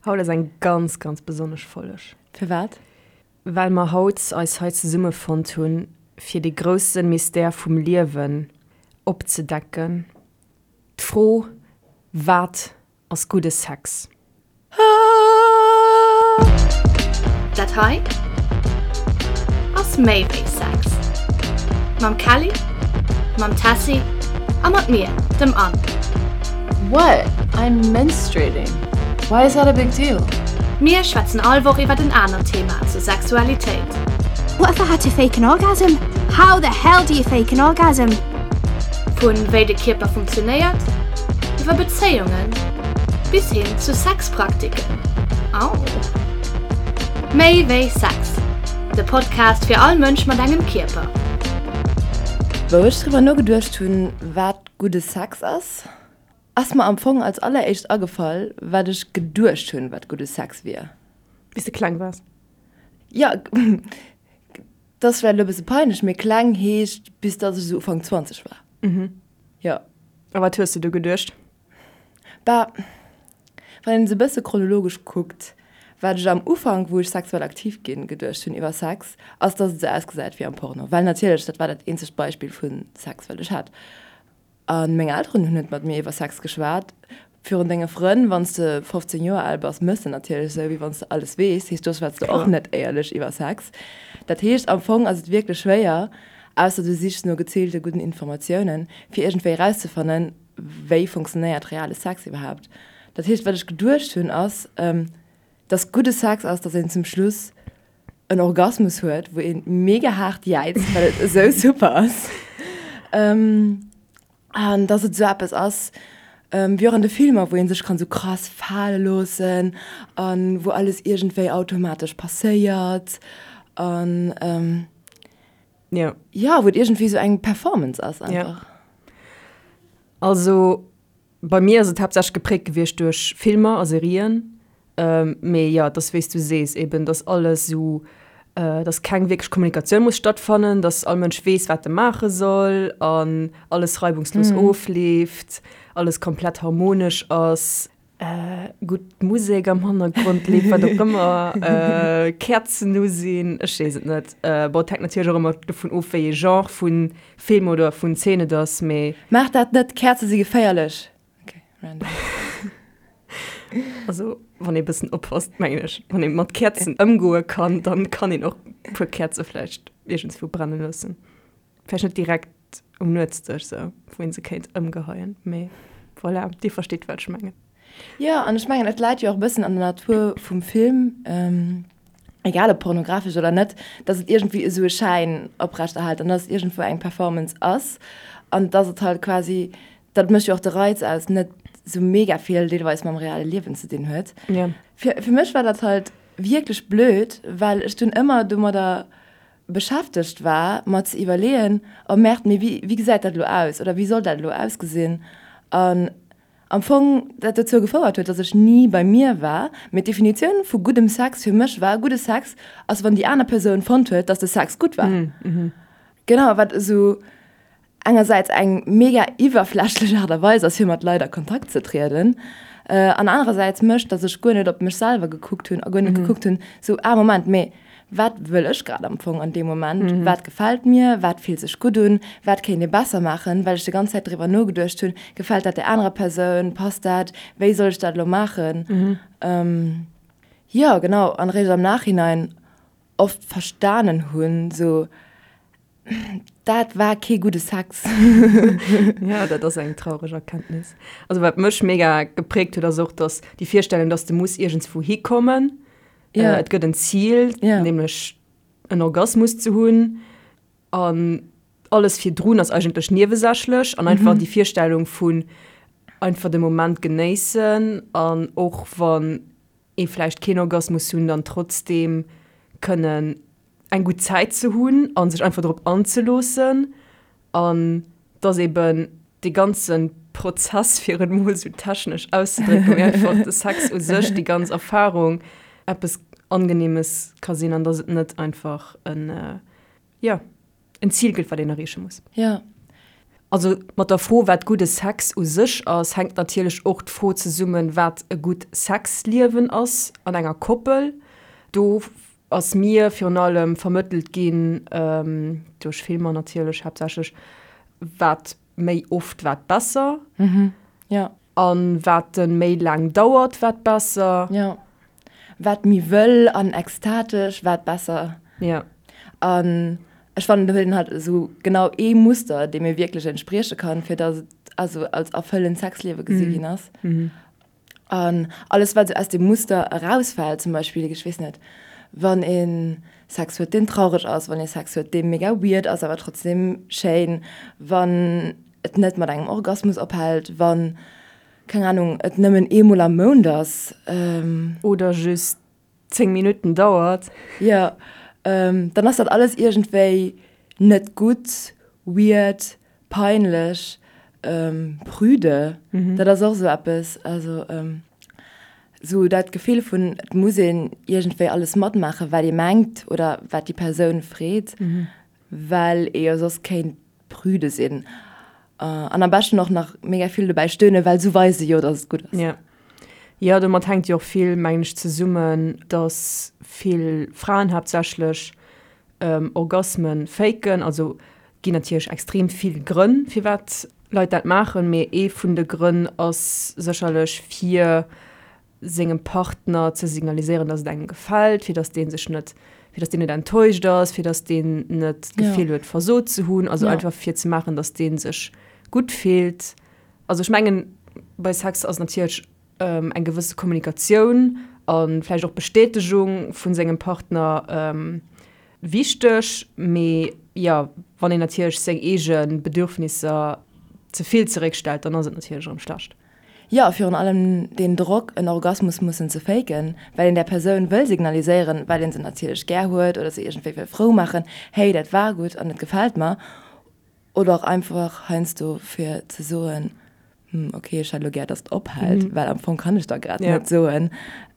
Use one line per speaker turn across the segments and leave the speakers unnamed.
Haut ass eng ganz, ganz besonnesch Folg.
Firwat?
Well mer haut eis hei zesummefonnt hunn, fir dee grousse Mystère vum Liewen opzedecken, d'Fro, Wat ass gudde Sex?
Dat hei ass méi wéi Sex. Mam Kelly, mam Tessy a mat mir, dem Anne.
What? I'm menstruating. Why is that a big deal?
Mir schwätzen all Woch iwwert en anert Thema zur Sexualitéit.
What if I had to fake an orgasm? How the hell do you fake an orgasm?
Vun wéi de Kierper funktionéiert, iwwer Bezéiungen bis hin zu Sexpraktiken. Au! Méi wéi Sex, de Podcast fir all Mënsch mat engem Kierper.
Wou ech driwwer nogeduecht hunn, wat gudde Sex ass, ass mer am Fong als alleréischt agefall, wat ech geduecht hunn, wat gudde Sex wier.
Wéi s de kleng waars?
Jo, dat ass vläicht elo e bësse peinlech, mee kleng heescht, bis datt ech esou Ufank 20 war. Jo.
A wat hues de du geduecht?
Bah, wann een se e bësse chronologesch kuckt, wat ech am Ufank, wou ech sexuell aktiv ginn, geduecht hunn iwwer Sex, ass, dass et esou ausgesäit wéi am Porno. Well natierlech, dat war dat eenzegt Beispill vu Sex, wat ech hat. A meng Elteren hunn net mat mir iwwer Sex geschwat. Virun denge Frënn, wann s de 15 Joer al bass, méchs de natierlech esou, wéi wann s de alles weess. Heescht, do schwätz de och net éierlech iwwer Sex. Dat heescht, am Fong ass et wierklech schwéier, ausser du sichs no geziilte gudden Informatiounen, fir iergendwéi erauszefannen, wéi funktionéiert reale Sex iwwerhaapt. Dat heescht, wat ech geduecht hunn, ass, dass gudde Sex ass, dass een zum Schluss en Orgasmus huet, wou ee mega haart jäizt, well et esou super ass. An dass et esou eppes ass, wéi och an de Filmer, wou ee sech kann esou krass fale loossen a wou alles iergendwéi automatesch passéiert an.
Jo.
Jo, wou et iergendwéi esou eng Performance ass einfach.
Ja. Also bei mir ass et haaptsächlech gepräägt gewiescht duerch Filmer a Serien. Mee jo, et ass wéi s du sees eben, dass alles esou, dass keng wierklech Kommunikatioun muss stattfannen, dass all Mënsch weess, wat e maache soll an alles reibungslos ofleeft, alles komplett harmonesch ass. Gutt Musek am Hannergrond leeft, wat och ëmmer, Käerzen u sinn, ech weess et net. Bon, et hänkt natierlech och ëmmer dovun of, wéi ee Genre vu Film oder vun Zeen et ass, mee.
Maach dat net, Käerze si geféierlech! Ok, random.
Also, wann ee bëssen oppasst, mengen ech, wann ee mat Käerzen ëmgoe kann, dann kann een och e puer Käerze vläicht iergendswou brenne loossen. Vläicht net direkt um Nuetsdësch sou, wou een se kéint ëmgeheien, mee voilà, dir verstitt wat ech mengen.
Jo, an ech mengen et läit jo och e bëssen an der Natur vum Film, egal ob pornografesch oder net, datt et iergendwéi esou e Schäin oprechterhält an datt et iergendwou eng Performance ass an datt et halt quasi, dat mécht jo och de Reiz aus, net esou mega vill deelweis mam reale Liewen ze dinn huet. Fir mech war dat halt wierklech blöd, well ech dunn ëmmer domadder beschäftegt war, mer ze iwwerleeën, oh Merde, mee wéi, wéi gesäit dat elo aus oder wéi soll dat elo ausgesinn? An am Fong dat dozou gefouert huet, dass ech ni bei mir war. Mee d'Definitioun vu guddem Sex fir mech war, gudde Sex ass, wann déi aner Persoun fonnt huet, dass de Sex gutt war. Genau, wat esou engersäits eng mega iwwerflächlech Aart a Weis ass, fir mat Leit a Kontakt ze trieden, an anerersäits mécht, datt ech guer net op mech selwer gekuckt hunn a guer net gekuckt hunn, sou, ah Moment, mee wat wëll ech grad am Fong an deem Moment, wat gefält mir, wat fillt sech gutt un, wat kéint ee besser maachen, well ech déi ganz Zäit driwwer nogeduecht hunn, gefält dat där anerer Persoun, passt dat, wéi soll ech dat elo maachen? Jo, genau, an eréischt am Nachhinein oft verstanen hunn, sou, Dat war kee gudde Sex.
Ja, dat ass eng traureg Erkenntnis. Also wat mech mega geprägt huet, ass och, dass déi Virstellung, dass de muss iergendswou hikommen.
Ja.
Äh, et gëtt en Ziel,
Ja.
nämlech en Orgasmus ze hunn. An alles virdrun ass eigentlech niewesächlech. An einfach déi Virstellung vun einfach de Moment genéissen an och wann ee vläicht keen Orgasmus hunn, dann trotzdeem kënnen eng gutt Zäit ze hunn a sech einfach drop anzeloossen an dass eben dee ganze Prozess, fir et mol esou technesch auszedrécken, mee einfach de Sex u sech, déi ganz Erfarung eppes Angenehmes ka sinn an dass et net einfach en, jo, en Zil gëtt, wat een erreeche muss.
Jo.
Also mat der Fro, wat gudde Sex u sech ass, hänkt natierlech och d'Fro zesummen, wat e gutt Sexliewen ass an enger Koppel. Do ass mir virun allem vermëttelt ginn, duerch Filmer natierlech haaptsächlech, wat méi oft, wat besser.
Jo.
An wat en méi laang dauert, wat besser.
Jo. Wat méi wëll an ekstatesch, wat besser.
Jo.
An ech fannen, do huet een halt esou genau ee Muster, dee mir wierklech entsprieche kann, fir dass et also als erfëllend Sexliewe gesi ginn ass. An alles, wat esou aus deem Muster erausfält, zum Beispill, ech weess net, wann ee Sex huet, deen traureg ass, wann ee Sex huet, dee mega weird ass, awer trotzdem schéin, wann et net mat engem Orgasmus ophält, wann, keng Ahnung, et nëmmen eemol am Mount ass.
Oder just 10 Minutten dauert.
Jo, dann ass dat alles iergendwéi net gutt, weird, peinlech, prüde. Dat ass och esou eppes, also esou dat Gefill vun, et muss een iergendwéi alles matmaachen, wat ee mengt oder wat déi Persoun freet, well ee jo soss kéint prüde sinn. An am beschten och nach mega vill dobäi stöhnen, well sou weise se jo, dass et gutt ass.
Jo. Jo, domat hänkt jo och vill, mengen ech, zesummen, dass vill Fraen haaptsächlech Orgasme faken. Also ginn natierlech extrem vill Grënn, firwat Leit dat maachen, mee ee vun de Grënn ass sécherlech fir sengem Partner ze signaliséieren, dass et engem gefält, fir dass dee sech net, fir dass deen net enttäuscht ass, fir dass deen net d'Gefill huet, versot ze hunn, also einfach fir ze maachen, dass dee sech gutt fillt. Also ech mengen, bei Sex ass natierlech eng gewësse Kommunikatioun a vläicht och Bestätegung vu sengem Partner wichteg, mee jo, wann een natierlech seng eege Bedürfnisser ze vill zeréckstellt, dann ass et natierlech erëm schlecht.
Jo, a virun allem deen Drock, en Orgasmus mussen ze faken, well een där Persoun wëll signaliséieren, well een se natierlech gär huet oder se iergendwéi wëll frou maachen, hey, dat war gutt an et gefält mer. Oder och einfach heiansdo fir ze soen, hm, okay, ech hätt elo gär, dass et ophält, well am Fong kann ech der grad net soen,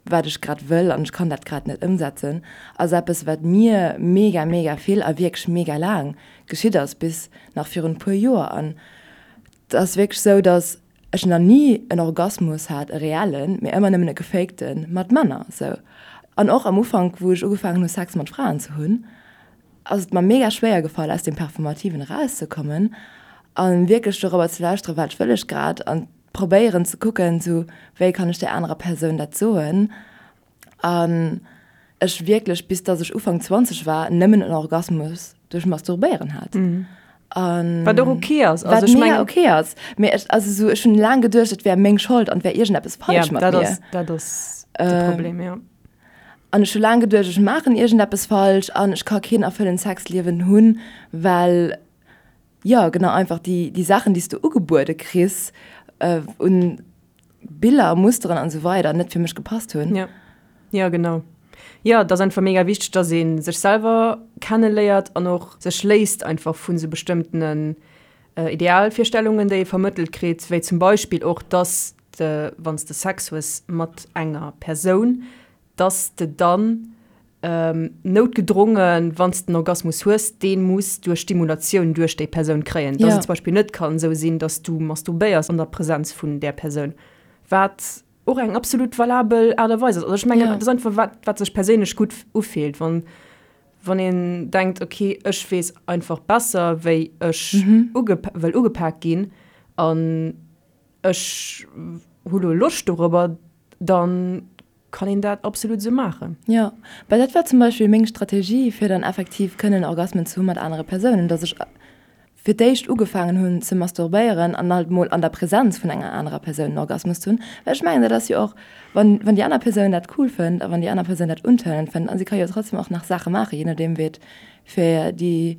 wat ech grad wëll an ech kann dat grad net ëmsetzen, ass eppes, wat mir mega, mega vill a wierklech mega laang geschitt ass, bis nach virun e puer Joer. An et ass wierklech esou, dass ech nach ni en Orgasmus hat, e reellen, mee ëmmer nëmmen e gefakten, mat Männer sou. An och am Ufank, wou ech ugefaangen hu Sex mat Fraen ze hunn, ass et mer mega schwéier gefall aus deem Performativen erauszekommen a wierklech dorobber ze lauschteren, wat wëll ech grad an probéieren ze kucken, sou wéi kann ech där anerer Persoun dat soen. An ech wierklech, bis dass ech Ufank 20 war, nëmmen en Orgasmus duerch Masturbéieren hat.
An Wat och ok ass.
Also wat mega ok ass. Mee ech, also sou, ech hunn laang geduecht, et wär meng Schold an et wär iergendeppes falsch
ja,
mat
dat
mir.
Ass, dat ass de äh, Problem, ja.
An ech hu laang geduecht, ech maachen iergendeppes falsch an ech ka keen erfëllend Sexliewen hunn, well, jo, genau, einfach déi, déi Saachen, déi s du ugebuede kriss, äh, un Biller, Musteren an esou weider net fir mech gepasst hunn.
Ja. Ja, genau. Jo, et ass einfach mega wichteg, dass ee sech selwer kenneléiert an och sech léisst einfach vu sou bestëmmtenen Idealvirstellungen, déi ee vermëttelt kritt, wéi zum Beispill och, dass de, wann s de Sex hues mat enger Persoun, dass de dann noutgedrongen, wann s de den Orgasmus hues, dee muss duerch Stimulatioun duerch déi Persoun kréien. Dass et zum Beispill net kann esou sinn, dass du masturbéiers an der Präsenz vun där Persoun, wat och eng absolut valabel Aart a Weis ass. Also ech mengen, et ass einfach wat, wat sech perséinlech gutt ufillt, wann, wann een denkt, okay, ech weess einfach besser, wéi ech uge wëll ugepak ginn an ech hu lo Loscht dorobber, dann kann een dat absolut esou maachen.
Jo, well dat war zum Beispill meng Strategie, fir dann effektiv kënnen Orgasmen ze hu mat anere Persounen, dass ech fir d'éischt ugefaangen hunn ze masturbéieren an halt mol an der Präsenz vun enger anerer Persoun en Orgasmus ze hunn, well ech mengen, dat ass jo och, wann, wann déi aner Persoun dat cool fënnt a wann déi aner Persoun dat untörnend fënnt, a si ka jo trotzdem och nach Saache maachen, je nodeem wéi et fir déi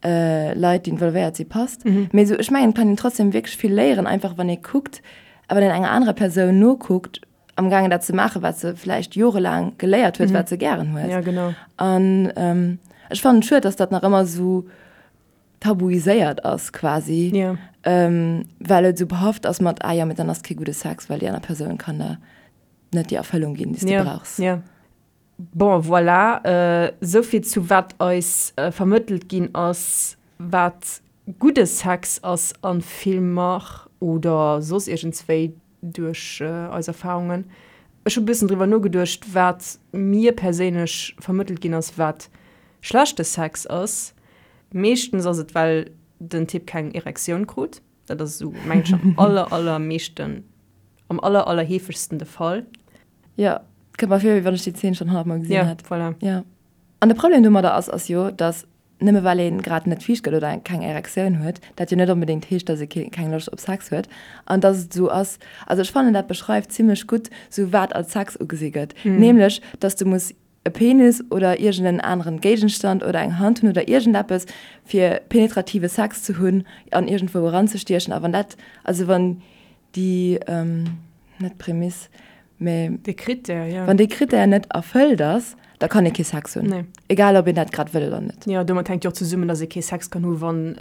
Leit, déi involvéiert si passt. Mee esou, ech mengen, et kann een trotzdem wierklech vill léieren, einfach wann ee kuckt a wann een enger anerer Persoun nokuckt, am gaangen dat ze maachen, wat se vläicht jorelaang geléiert huet, wat se gären huet.
Ja, genau.
An ähm, ech fannen et schued, dass dat nach ëmmer esou tabuiséiert ass quasi.
Ja.
Ähm, well et esou behaft ass mat, ah jo, mee dann ass kee gudde Sex, well déi aner Persoun kann der net déi Erfëllung ginn, déi s de
ja.
brauchs.
Ja. Bon, voilà, esou vill zu wat eis vermëttelt ginn ass, wat. Gudde Sex ass a Filmer oder soss iergendswéi duerch eis Erfarungen. Ech hu bëssen driwwer nogeduecht, wat mir perséinlech vermëttelt ginn ass, wat schlechte Sex ass. Meeschtens ass et, well den Typ keng Erektioun krut. Dat ass esou, mengen ech, am aller, allermeeschten, am aller, allerheefegsten de Fall.
Jo, kënnt mer vir, wéi wann ech déi Zeen schonn honnertmol gesinn hätt.
Jo, voilà.
Jo. An de Problem domadder ass, ass jo, dass nëmme well ee grad net fiicht gëtt oder keng Erektioun huet, dat jo net onbedéngt heescht, dass ee keng Loscht op Sex huet. An dass et esou ass, also ech fannen dat beschreift zimlech gutt sou wat als Sex ugesi gëtt, nämlech dass du muss e Penis oder iergend en aneren Géigenstand oder eng Hand hunn oder iergendeppes fir penetrative Sex ze hunn an iergendwou eranzestiechen. A wann dat, also wann déi, net Prämiss, mä
Dee Krittär, jo.
Wann dee Krittär net erfëllt ass, da kann ee kee Sex hunn.
Nee.
Egal ob een dat grad wëll oder net.
Jo, domat hänkt jo och zesummen, datt ee kee Sex kann hu wann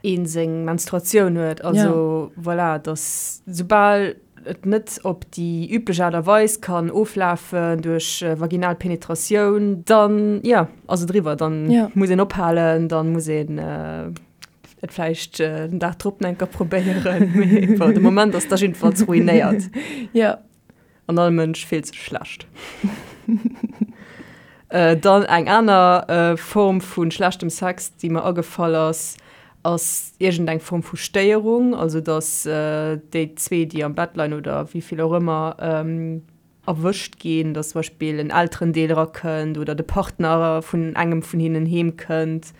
ee seng Menstruatioun huet. Also voilà, datt soubal et net op déi üblech Aart a Weis kann oflafen duerch vaginal Penetratioun, dann, jo, ass et eriwwer. Dann muss een ophalen, dann muss een Et vläicht den Dag drop nach eng Kéier probéieren, mee bon, de Moment ass da jiddefalls ruinéiert.
Jo.
An all Mënsch fillt sech schlecht. Dann eng aner Form vu schlechtem Sex, déi mer agefall ass, ass iergendeng Form vu Stéierung, also dass déi zwee, déi am Bett leien oder wéi vill och ëmmer, erwëscht ginn, dass zum Beispill en Elterendeel erakënnt oder de Partner vun engem vun hinnen heemkënnt.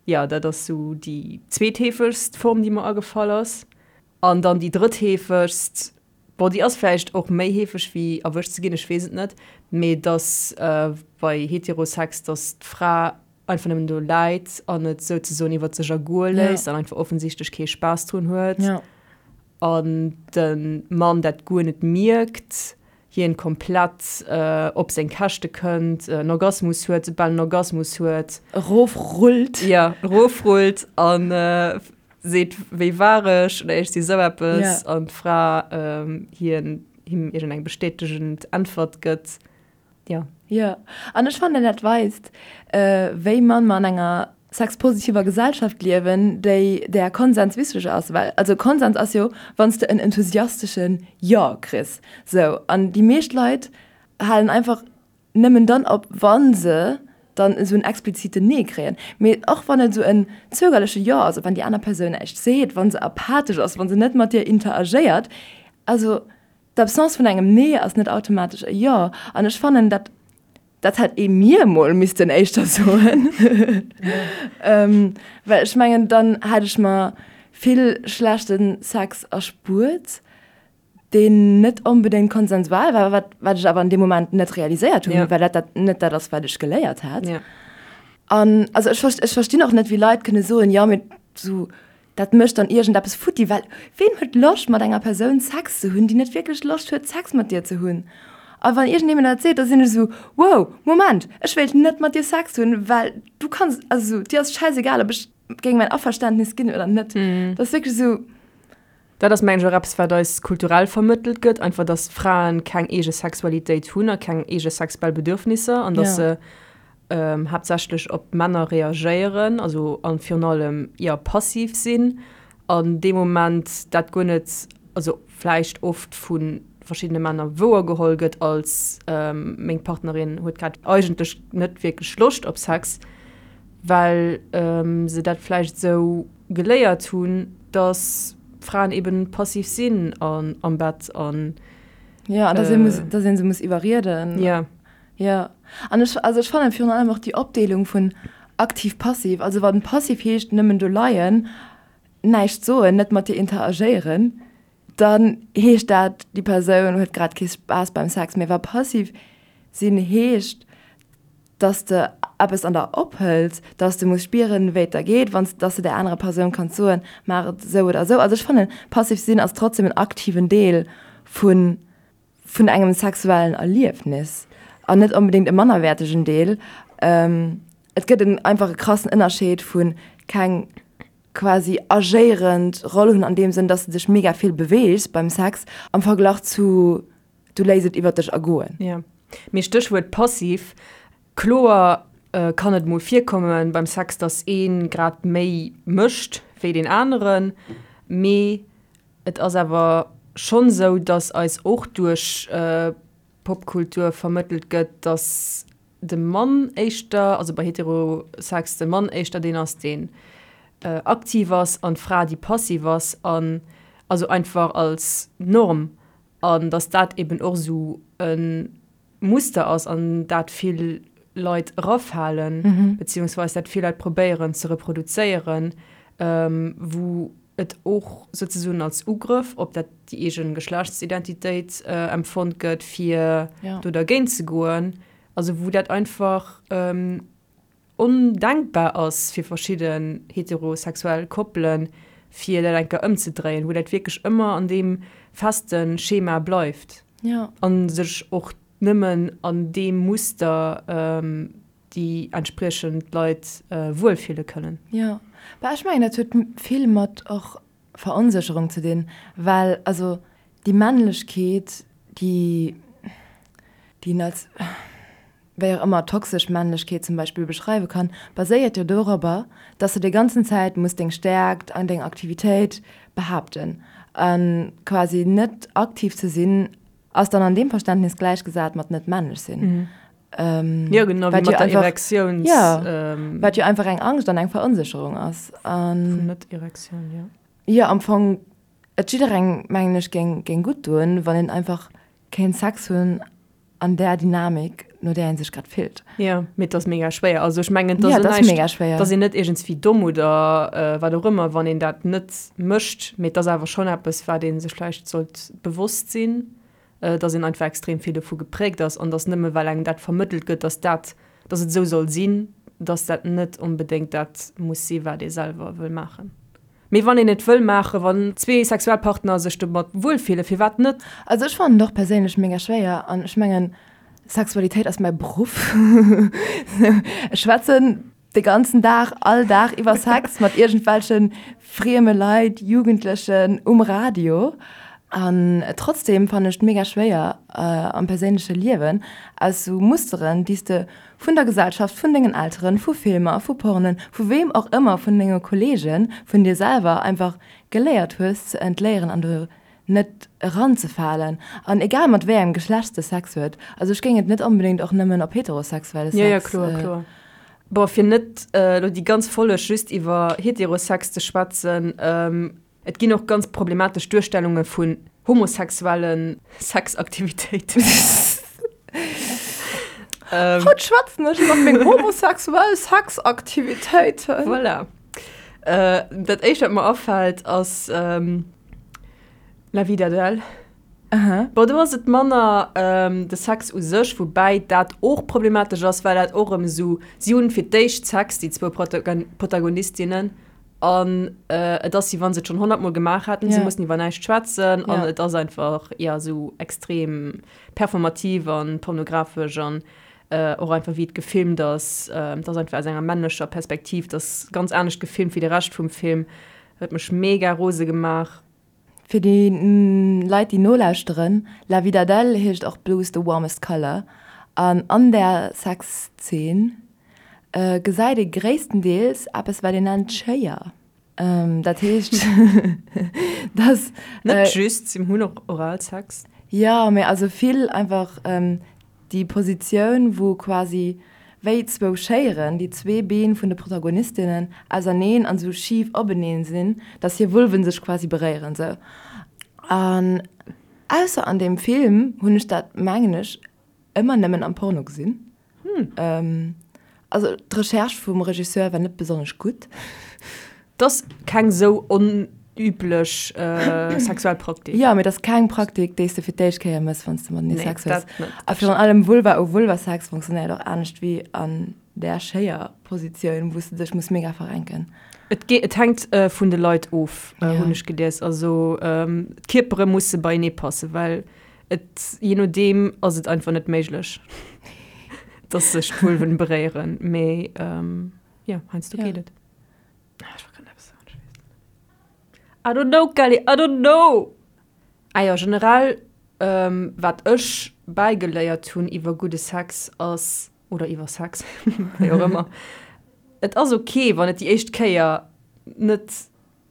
Jo, dat ass sou déi zweetheefegst Form, déi mer agefall ass. An dann déi drëttheefegst, bon, déi ass vläicht och méi heefeg wéi erwëscht ze ginn, ech weess et net, mee dass bei Heterosex, dass d'Fra einfach nëmmen do läit an et souzesoen iwwer sech ergoe léisst an einfach offensichtlech kee Spaass drun huet. An de Mann dat guer net mierkt, hien komplett op seng Käschte kënnt, en Orgasmus huet, soubal en Orgasmus huet.
Erofrullt.
Jo, erofrullt a seet, wéi war ech oder iergendwéi esou eppes. An d'Fra hien, him iergendeng bestätegend Äntwert gëtt.
Jo. Jo, an ech fannen dat weist, wéi mann mer an enger sexpositiver Gesellschaft liewen, déi där Konsens wichteg ass. Well also Konsens ass jo, wann s de en enthusiastesche Jo kriss. Sou, an déi meescht Leit halen einfach nëmmen dann op, wa se dann esou en expliziten Nee kréien. Mee och wann et esou en zögerleche Jo ass, wann déi aner Persoun näischt seet, wa se apathesch ass, wa se net mat dir interagéiert, also D'Absence vun engem Nee ass net automatesch e Jo. An ech fannen, dat, dat hätt ee mir emol missten éischter soen. Well ech mengen, dann hätt ech mer vill schlechte Sex erspuert, deen net onbedéngt konsensual war, wat, wat ech awer an deem Moment net realiséiert hunn, well dat dat net dat ass, wat ech geléiert hat. An also ech, ech verstinn och net, wéi Leit kënne soen, jo, mee sou Dat mécht dann iergendeppes futti, well ween huet Loscht mat enger Persoun Sex ze hunn, déi net wierklech Loscht huet Sex mat dir ze hunn? A wann iergendee mir dat seet, da sinn ech esou, wow, Moment, ech wéilt net mat dir Sex hunn, well du kanns, also esou, dir ass schäisegal, ob ech géing mäin Averständnis ginn oder net. Dat ass wierklech esou.
Dat ass mengen ech och eppes, wat eis kulturell vermëttelt gëtt, einfach dass Fraen keng eege Sexualitéit hunn a keng eege sexuell Bedürfnisser an dass se haaptsächlech op Männer reagéieren, also an virun allem jo passiv sinn an dee Moment dat guer net, also vläicht oft vu verschiddene Männer wouer geholl gëtt als meng Partnerin huet grad eigentlech net wierklech Loscht op Sex, well se dat vläicht esou geléiert hunn, dass Fraen eben passiv sinn an am Bett an.
Jo, an dass ee muss, dass ee se muss iwwerrieden.
Jo.
Jo, an ech, also ech fannen virun allem och déi Opdeelung vun aktiv, passiv, also wann passiv heescht nëmmen do leien, näischt soen, net mat dir interagéieren, dann heescht dat déi Persoun huet grad kee Spaass beim Sex, mee wa passiv sinn heescht, dass de eppes an der ophëls, dass de muss spieren, wéi et der geet, wann s, dass de där anerer Persoun kanns soen, maach et esou oder esou. Also ech fannen, passiv sinn ass trotzdem en aktiven Deel vun, vun engem sexuellen Erliefnis an net onbedéngt e mannerwäertegen Deel. Et gëtt en einfach e krassen Ënnerscheed vu keng quasi agéierend Roll hunn an deem Sënn, dass de dech mega vill beweegs beim Sex am Verglach zu du léiss et iwwer dech ergoen.
Jo, mee Stéchwuert passiv, kloer. kann et mol virkommen beim Sex, dass ee grad méi mécht wéi deen aneren, mee et ass awer schonn esou, dass eis och duerch Popkultur vermëttelt gëtt, dass de Mann éischter, also bei Heterosex de Mann éischter deen ass, deen aktiv ass an d'Fra déi passiv ass an also einfach als Norm an dass dat eben och esou e Muster ass an dat vill Leit erafalen, beziehungsweis dat vill Leit probéieren ze reproduzéieren, wou et och souzesoen als Ugrëff op dat déi eegen Geschlechtsidentitéit empfonnt gëtt, fir do dergéint ze goen. Also wou dat einfach ondenkbar ass fir verschidden heterosexuell Koppelen, fir dat eng Kéier ëmzedréien, wou dat wierklech ëmmer an deem feste Schema bleift a sech och nëmmen an deem Muster déi entspriechend Leit wuelfille kënnen.
Jo, bah ech mengen dat huet vill mat och Veronsécherung ze dinn, well also déi Männlechkeet, déi déi een als wéi och ëmmer toxesch Männlechkeet zum Beispill beschreiwe kann, baséiert jo dorobber, dass de déi ganzen Zäit muss deng Stäerkt an deng Aktivitéit behaapten a quasi net aktiv ze sinn ass dann an deem Verständnis gläichgesat mat net männlech sinn.
Jo genau, wéi mat der Erektiouns.
Jo, wat jo einfach eng Angscht an eng Veronsécherung ass.
Vun Net-Erektioun, jo.
Jo, am Fong, et jidderengem, mengen ech, géing géing gutt doen, wann een einfach kéint Sex hunn an där Dynamik, no där ee sech grad fillt.
Jo, mee et ass mega schwéier. Also ech mengen, et ass näischt, et ass een net iergendswéi domm oder wat och ëmmer, wann een dat net mécht, mee et ass awer schonn eppes, wat ee sech vläicht sollt bewosst sinn. dass een einfach extrem vill dovu gepräägt ass an dass nëmme well engem dat vermëttelt gëtt, dass dat, dass et esou soll sinn, dass dat net onbedéngt dat muss si wat ee selwer wëll maachen. Mee wann een et wëll maachen, wann zwee Sexualpartner sech domat wuelfillen, firwat net?
Also ech fannen et och perséinlech mega schwéier an ech mengen Sexualitéit ass mäi Beruff. Ech schwätzen de ganzen Dag, all Dag iwwer Sex mat iergendwelche frieme Leit, Jugendlechen um Radio. An trotzdem fannen ech et mega schwéier am perséinleche Liewen aus sou Musteren, déi s de vun der Gesellschaft, vun dengen Elteren, vu Filmer, vu Pornen, vu weem och ëmmer, vun denge Kolleegen, vun dir selwer einfach geléiert hues ze entléieren an do net eranzefalen. An egal mat wéi engem Geschlecht de Sex huet, also ech géing et net onbedéngt och nëmmen op heterosexuelle
Sex. Jo, jo, kloer, kloer. Bon, fir net elo déi ganz Folleg just iwwer Heterosex ze schwätzen, et ginn och ganz problematesch Duerstellunge vun homosexuelle Sexaktivitéiten.
Haut schwätzen ech iwwer meng homosexuell Sexaktivitéiten.
Voilà. Dat éischt, wat mer afält, ass La vie d'Adèle. Bon, do ass et manner de Sex u sech, woubäi dat och problematesch ass, well dat och erëm esou, si hunn fir d'éischt Sex, déi zwou Protagonistinnen, an et ass, wéi wa se et schonn honnertmol gemaach hätten, si mussen iwwer näischt schwätzen an et ass einfach, jo, esou extrem performativ an pornografesch an och einfach wéi et gefilmt ass, et ass einfach aus enger männlecher Perspektiv, et ass ganz anescht gefilmt wéi de Rescht vum Film, huet mech mega rose gemaach.
Fir déi Leit déi nolauschteren, La vie d'Adèle heescht och Blue is the warmest color an an där Sexzeen gesäit ee gréisstendeels eppes wat een nennt Schéier. Dat heescht dass.
Net just, si hunn och Oralsex.
Jo, mee also vill einfach Déi Positioun, wou quasi wéi zwou Schéieren déi zwee Been vun de Protagonistinnen auserneen an esou schif openeen sinn, dass hir Vulven sech quasi beréieren sou. An ausser an deem Film hunn ech dat, mengen ech, ëmmer nëmmen am Porno gesinn. Also d'Recherche vum Regisseur war net besonnesch gutt.
't ass keng sou onüblech sexuell Praktik.
Jo, mee 't ass keng Praktik, déi s de fir d'éischt Kéier mëss, wann s de matenee Sex hues. A virun allem Vulva u Vulva-Sex funktionéiert och anescht wéi an där Schéier-Positioun, wou s de dech muss mega verrenken.
Et geet, et hänkt vun de Leit of, hunn ech gelies. Also d'Kierpere musse beienee passen, well et, jee nodeem ass et einfach net méiglech, dass sech d'Vulven beréieren. Mee jo, heiansdo geet et. Ah, ech wollt grad eppes soen, ech weess et net. I don't know, Kelly, I don't know! Ah jo, generell, wat ech bäigeléiert hunn iwwer gudde Sex ass. Oder iwwer Sex, wéi och ëmmer. Et ass ok, wann et déi éischt Kéier net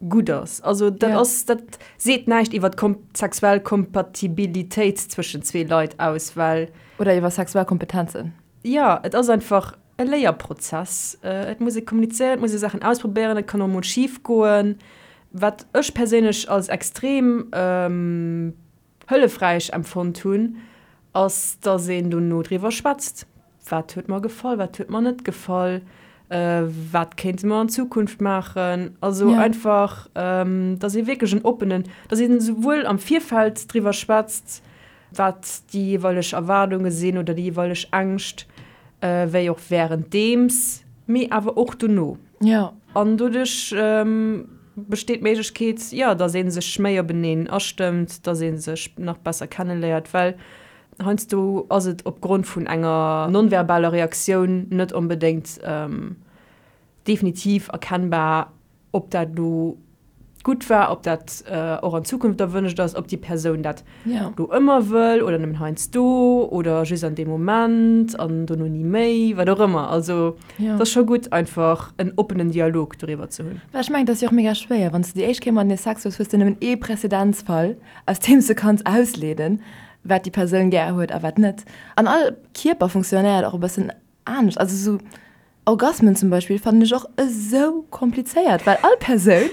gutt ass. Also dat ass, dat seet näischt iwwer d'sexuell Kompatibilitéit zwëschen zwee Leit aus, well.
Oder iwwer sexuell Kompetenzen.
Jo, et ass einfach e Léierprozess. Et muss ee kommunizéieren, et muss ee Saachen ausprobéieren, et kann och mol schif goen. Wat ech perséinlech als extrem hëllefräich empfonnt hunn, ass, dass een dono driwwer schwätzt, Wat huet mer gefall, wat huet mer net gefall, wat kéinte mer an Zukunft maachen? Also einfach, dass ee wierklech en oppenen, dass een esouwuel am Virfeld driwwer schwätzt, wat déi jeeweileg Erwaardunge sinn oder déi jeeweileg Ängscht, wéi och wärenddeems, mee awer och dono. An doduerch besteet d'Méiglechkeet, jo, dass ee sech méi openeen astëmmt, dass ee sech nach besser kenneléiert, well heiansdo ass et opgrond vun enger nonverbaler Reaktioun net onbedéngt definitiv erkennbar, ob dat elo gutt war, ob dat och an Zukunft erwënscht ass, ob déi Persoun dat elo ëmmer wëll oder nëmmen heiansdo oder just an deem Moment an dono ni méi, wat och ëmmer. Also et ass scho gutt, einfach en oppenen Dialog doriwwer ze hunn.
Well ech mengen, et ass jo och mega schwéier, wann s de déi éischt Kéier matenee Sex hues, hues de nëmmen ee Präzedenzfall, aus deem s de kanns ausleeden, wat déi Persoun gär huet a wat net. An all Kierper funktionéiert och e bëssen anescht. Also esou Orgasmen zum Beispill fannen ech och esou komplizéiert, well all Persoun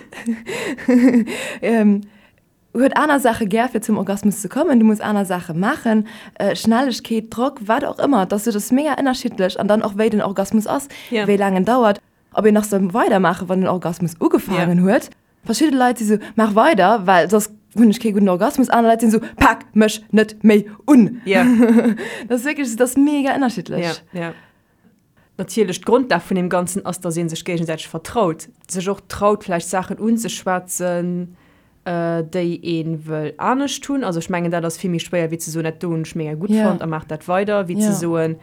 huet aner Saache gär fir zum Orgasmus ze kommen. Du muss aner Saache maachen, Schnellegkeet, Drock, wat och ëmmer. Et ass esou, dat ass mega ënnerschiddlech an dann och wéi den Orgasmus ass, wéi laang en dauert, ob een nach soll weidermaachen, wann den Orgasmus ugefaangen huet. Verschidde Leit si sou, maach weider, well soss hunn ech kee gudden Orgasmus. Aner Leit sinn sou, pak mech net méi un. Dat ass wierklech, dat ass mega ënnerschiddlech.
Natierlech, d'Grondlag vun deem Ganzen ass, dass ee sech géigesäiteg vertraut, sech och traut, vläicht Saachen unzeschwätzen, déi ee wëll anescht hunn. Also ech mengen, dat ass vill méi schwéier, wéi ze soen, dat do hunn ech mega gutt fonnt a maach dat weider, wéi ze soen,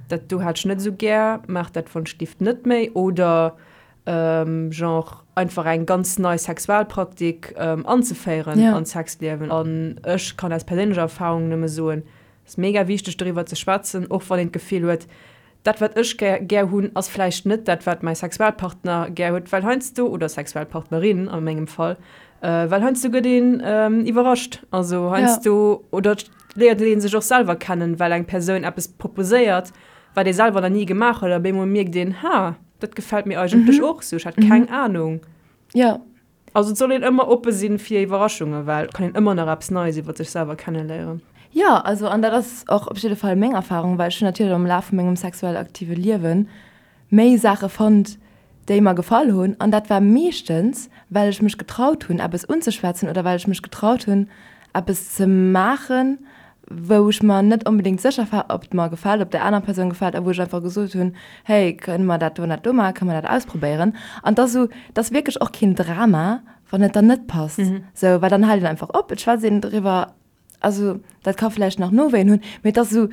dat do hat ech net esou gär, maach dat wonschlift net méi. Oder genre einfach eng ganz nei Sexualpraktik anzeféieren an d'Sexliewen. An ech kann aus perséinlecher Erfahrung nëmme soen, Et ass mega wichteg doriwwer ze schwätzen, och wann een d'Gefill huet, dat wat ech gär hunn, ass vläicht net dat wat mäi Sexualpartner gär huet, well heiansdo, oder Sexualpartnerin a mengem Fall, well heiansdo gëtt een iwwerrascht. Also heiansdo, oder et léiert ee sech och selwer kennen, well eng Persoun eppes proposéiert, wat ee selwer nach ni gemaach huet a op eemol mierkt een, ha, dat gefält mir eigentlech och sou, ech hat keng Anung. Also et soll een ëmmer oppe sinn fir Iwwerraschungen, well et kann een ëmmer nach eppes Neies iwwer sech selwer kenneléieren.
Jo, also an dat ass och op jidde Fall meng Erfahrung, well ech hunn natierlech am Laf vu mengem sexuell aktive Liewe méi Saache fonnt, déi mer gefall hunn an dat war meeschtens, well ech mech getraut hunn, eppes unzeschwätzen oder well ech mech getraut hunn, eppes ze maachen, wou ech mer net onbedéngt sécher war, ob et mer gefält, ob der aner Persoun gefält a wou ech einfach gesot hunn, hey, kënne mer dat do an dat do maachen, kënne mer dat ausprobéieren? An et ass esou, et ass wierklech och keen Drama, wann et dann net passt, esou, well dann hält een einfach op, et schwätzt een driwwer, also dat ka vläicht nach Nowéien hunn, mee et ass esou,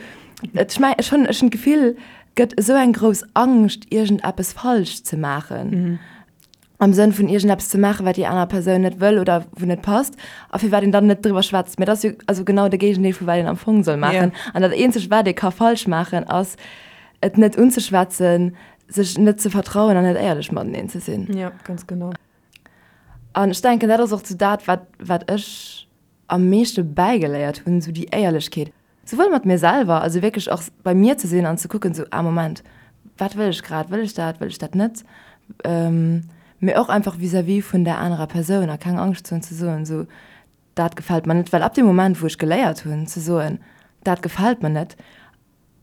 ech meng, ech hunn, ech hunn d'Gefill, et gëtt esou eng grouss Angscht, iergendeppes falsch ze maachen. Am Sënn vun iergendeppes ze maachen, wat déi aner Persoun net wëll oder wou net passt a firwat een dann net driwwer schwätzt. Mä dat ass jo also genau de Géigendeel vu wat een am Fong soll maachen. An dat eenzegt, wat ee ka falsch maachen, ass et net unzeschwätzen, sech net ze vertrauen an net éierlech mateneen ze sinn.
Jo, ganz genau.
An ech denken, dat ass och sou dat, wat, wat ech am meeschte bäigeléiert hunn, sou déi Éierlechkeet. Souwuel mat mir selwer, also wierklech och bei mir ze sinn an ze kucken, sou, ah Moment, wat wëll ech grad, wëll ech dat, wëll ech dat net? Mee och einfach vis-à-vis vun där anerer Persoun a keng Angscht ze hunn ze soen, sou, dat gefält mer net. Well ab deem Moment, wou ech geléiert hunn ze soen, dat gefält mer net,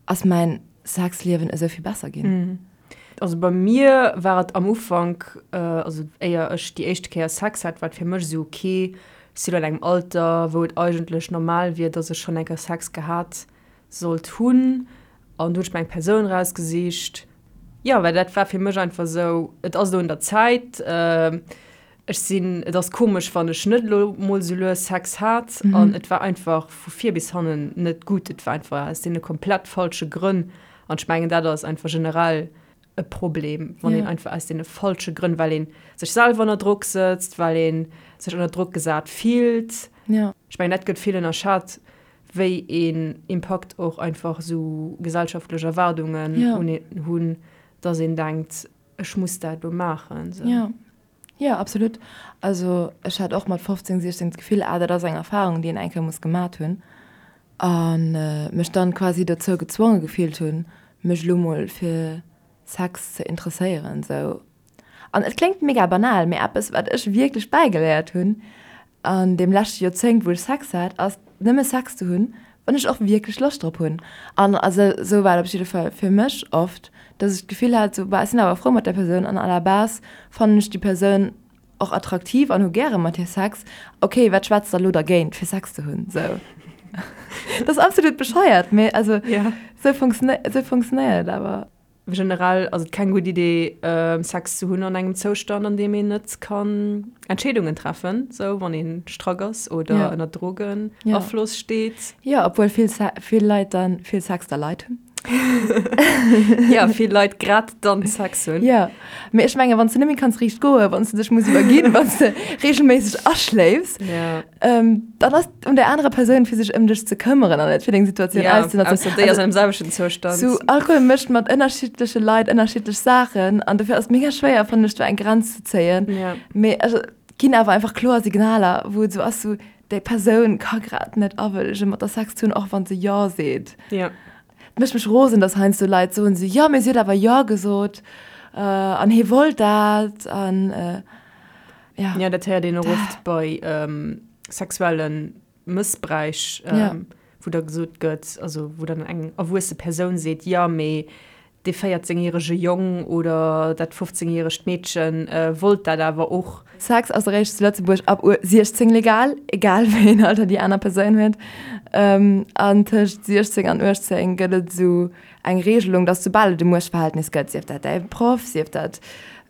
ass mäin Sexliewen esou vill besser ginn.
Also bei mir war et am Ufank, also éier ech déi éischte Kéier Sex hat, war et fir mech esou, ok, ech sinn elo an engem Alter, wou et eigentlech normal wier, dass ech schonn eng Kéier Sex gehat sollt hunn. An du hunn ech mir eng Persoun erausgesicht, jo, well dat war fir mech einfach esou, et ass elo un der Zäit. Ech sinn, et ass komesch, wann ech net elo mol sou lues Sex hat. An et war einfach vu vir bis hannen net gutt. Et war einfach aus deene komplett falsche Grënn. An ech mengen, dat ass einfach generell e Problem, wann een einfach aus deene falsche Grënn, well ee sech selwer ënner Drock sëtzt, well ee sech ënner Drock gesat fillt. Ech mengen, dat gëtt vill ënnerschat. Wéi een Impakt och einfach esou gesellschaftlech Erwaardungen un een hunn, dass een denkt, ech muss dat elo maachen.
Jo, jo, absolut. Also ech hat och mat 15, 16 d'Gefill, ah dat ass eng Erfarung, déi een eng Kéier muss gemat hunn. A mech dann quasi dozou gezwonge gefillt hunn, mech elo mol fir Sex ze interesséieren. Sou. An et kléngt mega banal, mee eppes wat ech wierklech bäigeléiert hunn an deem leschte Joerzéngt wou ech Sex hat, ass nëmme Sex ze hunn, wann ech och wierklech Loscht drop hunn. An also sou war et op jidde Fall fir mech oft, dass ech d'Gefill hat, sou bah ech sinn awer frou mat där Persoun an à la base fannen ech déi Persoun och attraktiv an hu gäre mat hir Sex, ok wat schwätzt da lo dergéint fir Sex ze hunn? Sou dat ass absolut bescheuert, mee also sou funktionéiert et awer.
Generell ass et keng gutt Idee, Sex ze hunn an engem Zoustand, an deem een net kann Entscheedungen treffen, sou wann ee strack ass oder ënner Drogenafloss steet.
Jo, obwuel vill, vill Leit dann vill Sex da Leit hunn.
Jo, vill Leit grad dann Sex hunn.
Jo, mee ech mengen, wann s de net méi kanns riicht goen, wann s de dech muss iwwerginn, wann s de reegelméisseg aschléifs, Dann ass et un der anerer Persoun, fir sech ëm dech ze këmmeren an net fir deng Situatioun
ja, auszenotzen. Ausser déi ass an dem selwechten Zoustand.
Sou, Alkohol mécht mat ënnerschiddleche Leit ënnerschiddlech Saachen an dofir ass et mega schwéier, fannen ech, do eng Grenz ze zéien.
Ja.
Mee also, et ginn awer einfach kloer Signaler, wou et sou ass, sou, déi Persoun ka grad net awëllegen, mat der Sex ze hunn, och wann se Jo seet.
Ja.
Et mécht mech rosen, dass heiansdo Leit soen sou, jo, mee si huet awer Jo gesot an hie wollt dat an.
Ja. Ja, dat héiert een och oft bei ähm, sexuelle Mëssbräich, ähm, ja. wou da gesot gëtt, also wou dann eng erwuesse Persoun seet, ja, mee dee 14-järege Jong oder dat 15-järegt Meedchen äh, wollt dat awer och.
Sex ass eréischt zu Lëtzebuerg ab 16 legal, egal wéi een Alter déi aner Persoun huet. Ähm, an tëscht 16 an 18 gëtt et esou eng Regelung, dass soubal et e Muechtverhältnis gëtt, sief dat däi Proff, sief dat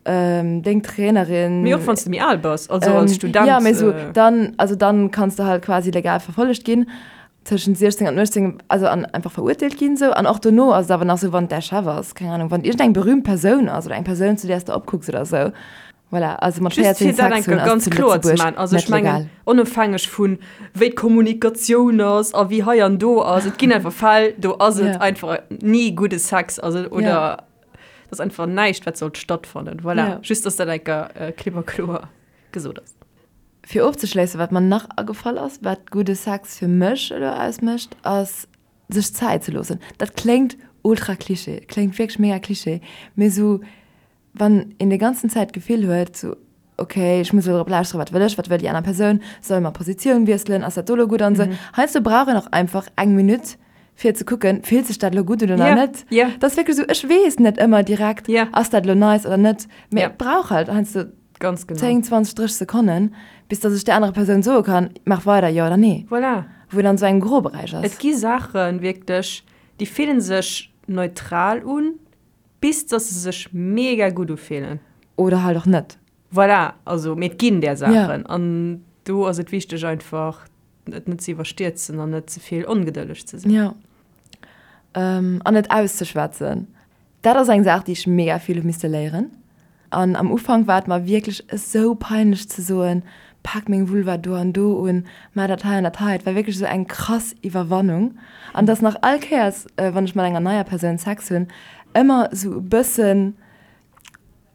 deng Trainerin.
Mee och wann s de méi al bass, also als Student.
Jo, mee esou dann, also dann kanns de halt quasi legal verfollegt ginn tëschent 16 an 18, also an einfach verurteelt ginn esou. An och dono ass et awer nach esou, wann et däi Chef ass, keng Ahnung, wann et iergendeng berühmt Persoun ass oder eng Persoun, zu där s de opkucks oder esou. Voilà, also mat
Just fir dat eng Kéier ganz kloer ze maachen, also ech mengen, onofhängeg vun wéi d'Kommunikatioun ass a wéi hei an do ass, et ginn einfach Fäll, do ass et einfach ni gudde Sex, also oder et ass einfach näischt, wat sollt stattfannen. Voilà, just dass dat eng Kéier klipp a kloer gesot ass.
Fir ofzeschléissen, wat mer nach agefall ass, wat gudde Sex fir mech elo ausmécht, ass sech Zäit ze loossen. Dat kléngt ultra Klischee, kléngt wierklech mega Klischee, mee esou Wann een déi ganzen Zäit d'Gefill huet, sou, ok, ech muss elo drop lauschteren, wat wëll ech, wat wëll déi aner Persoun, solle mer Positioun wiesselen, ass dat do elo gutt an esou. Heiansdo brauch een och einfach eng Minutt, fir ze kucken, fillt sech dat elo gutt un oder net. Dat ass wierklech esou, ech weess net ëmmer direkt, ass dat elo nice oder net, mee et brauch halt heiansdo 10, 20, 30 Sekonnen, bis datt ech där anerer Persoun soe kann, maach weider, jo oder nee.
Voilà.
Wou een an esou engem Groberäich ass.
Et gi Saachen, wierklech, déi fillen sech neutral un, Bis dass se sech mega gutt ufillen.
Oder halt och net.
Voilà, also mee et ginn där Saachen an do ass et wichteg einfach et net ze iwwerstierzen an net ze vill ongedëlleg ze
sinn. Jo. An et auszeschwätzen. Dat ass eng Saach déi ech mega vill hu misste léieren. An am Ufank war et mer wierklech esou peinlech ze soen, pak meng Vulva do an do un, maach dat hei an dat hei. Et war wierklech esou eng krass Iwwerwannung. An et ass nach all Kéiers, wann ech mat enger neier Persoun Sex hunn, ëmmer esou e bëssen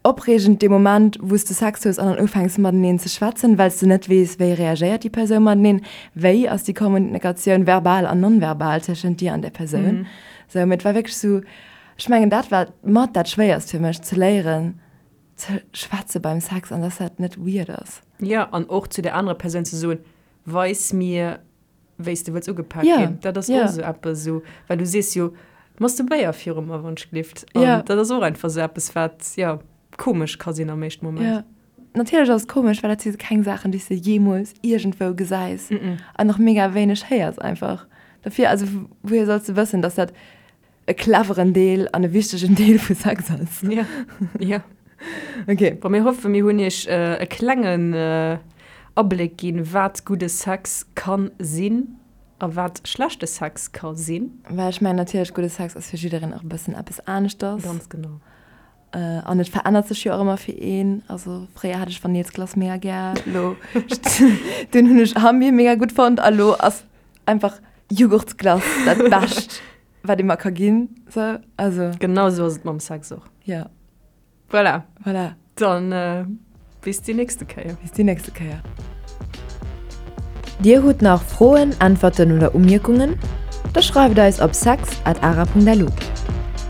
opreegend dee Moment, wou s de Sex hues an dann ufänks mateneen ze schwätzen, well s de net weess, wéi reagéiert déi Persoun mateneen, wéi ass déi Kommunikatioun verbal an non-verbal tëschent dir an där Persoun. Sou, mee et war wierklech esou, Ech mengen dat war mat dat schwéierst fir mech, ze léieren ze schwätze beim Sex an dass dat net weird ass.
Jo, an och zu der anerer Persoun ze soen, weis mir wéi s de wëlls ugepak ginn. Dat ass och esou eppes esou, well du sees jo, masturbéier viru mer wann ech glift. An dat ass och einfach esou eppes wat, jo, komesch ka sinn am éischten Moment.
Jo, natierlech ass et komesch, well dat si keng Saachen déi s de jeemools iergendwou gesäis an och mega wéineg héiers einfach. Dofir, also wouhier solls de wëssen, dass dat e cleveren Deel an e wichtegen Deel vu Sex ass.
Ja, ja.
Okay.
Bon, mir hoffen, mir hunn iech e klengen Abléck ginn, wat gudde Sex kann sinn a wat schlechte Sex ka sinn.
Well ech mengen natierlech, gudde Sex ass fir jiddereen och e bëssen eppes aneschters.
Ganz genau.
An et verännert sech jo och ëmmer fir een. Also fréier hat ech Vanillsglace mega gär, elo dunn hunn ech Hambier mega gutt fonnt a lo ass einfach. Jughurtsglace dat Bescht, wat ee mer ka ginn. Sou, also.
Genau sou ass et mam Sex och.
Jo.
Voilà.
Voilà.
Dann bis déi nächste Kéier.
Bis déi nächste Kéier. Dir hutt nach Froen, Äntwerten oder Umierkungen? Da schreift eis op sex at ara.lu.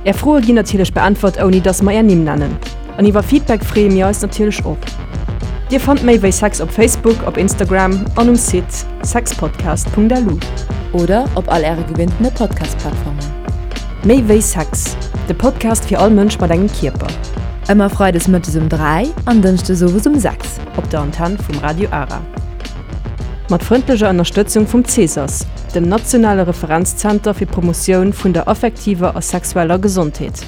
Är Froe ginn natierlech beäntwert ouni dass mer är Nimm nennen. An iwwer Feedback freeë mir eis natierlech och. Dir fannt méi wéi Sex op Facebook, op Instagram an um Site sexpodcast.lu.
Oder op all äre gewinntene Podcast-Plattformen.
Méi wéi Sex, de Podcast fir all Mënsch mat engem Kierper.
Ëmmer freides mëttes um 3 an dënschdes owes um 6.
Op der Antenn vum Radio Ara. Mat frëndlecher Ënnerstëtzung vum CESAS, dem nationale Referenzzenter fir d'Promotioun vun der affektiver a sexueller Gesondheet.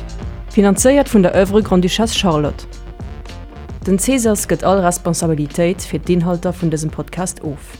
Finanzéiert vun der Oeuvre Grande-Duchesse Charlotte. Den CESAS gëtt all Responsabilitéit fir d'Inhalter vun dësem Podcast of.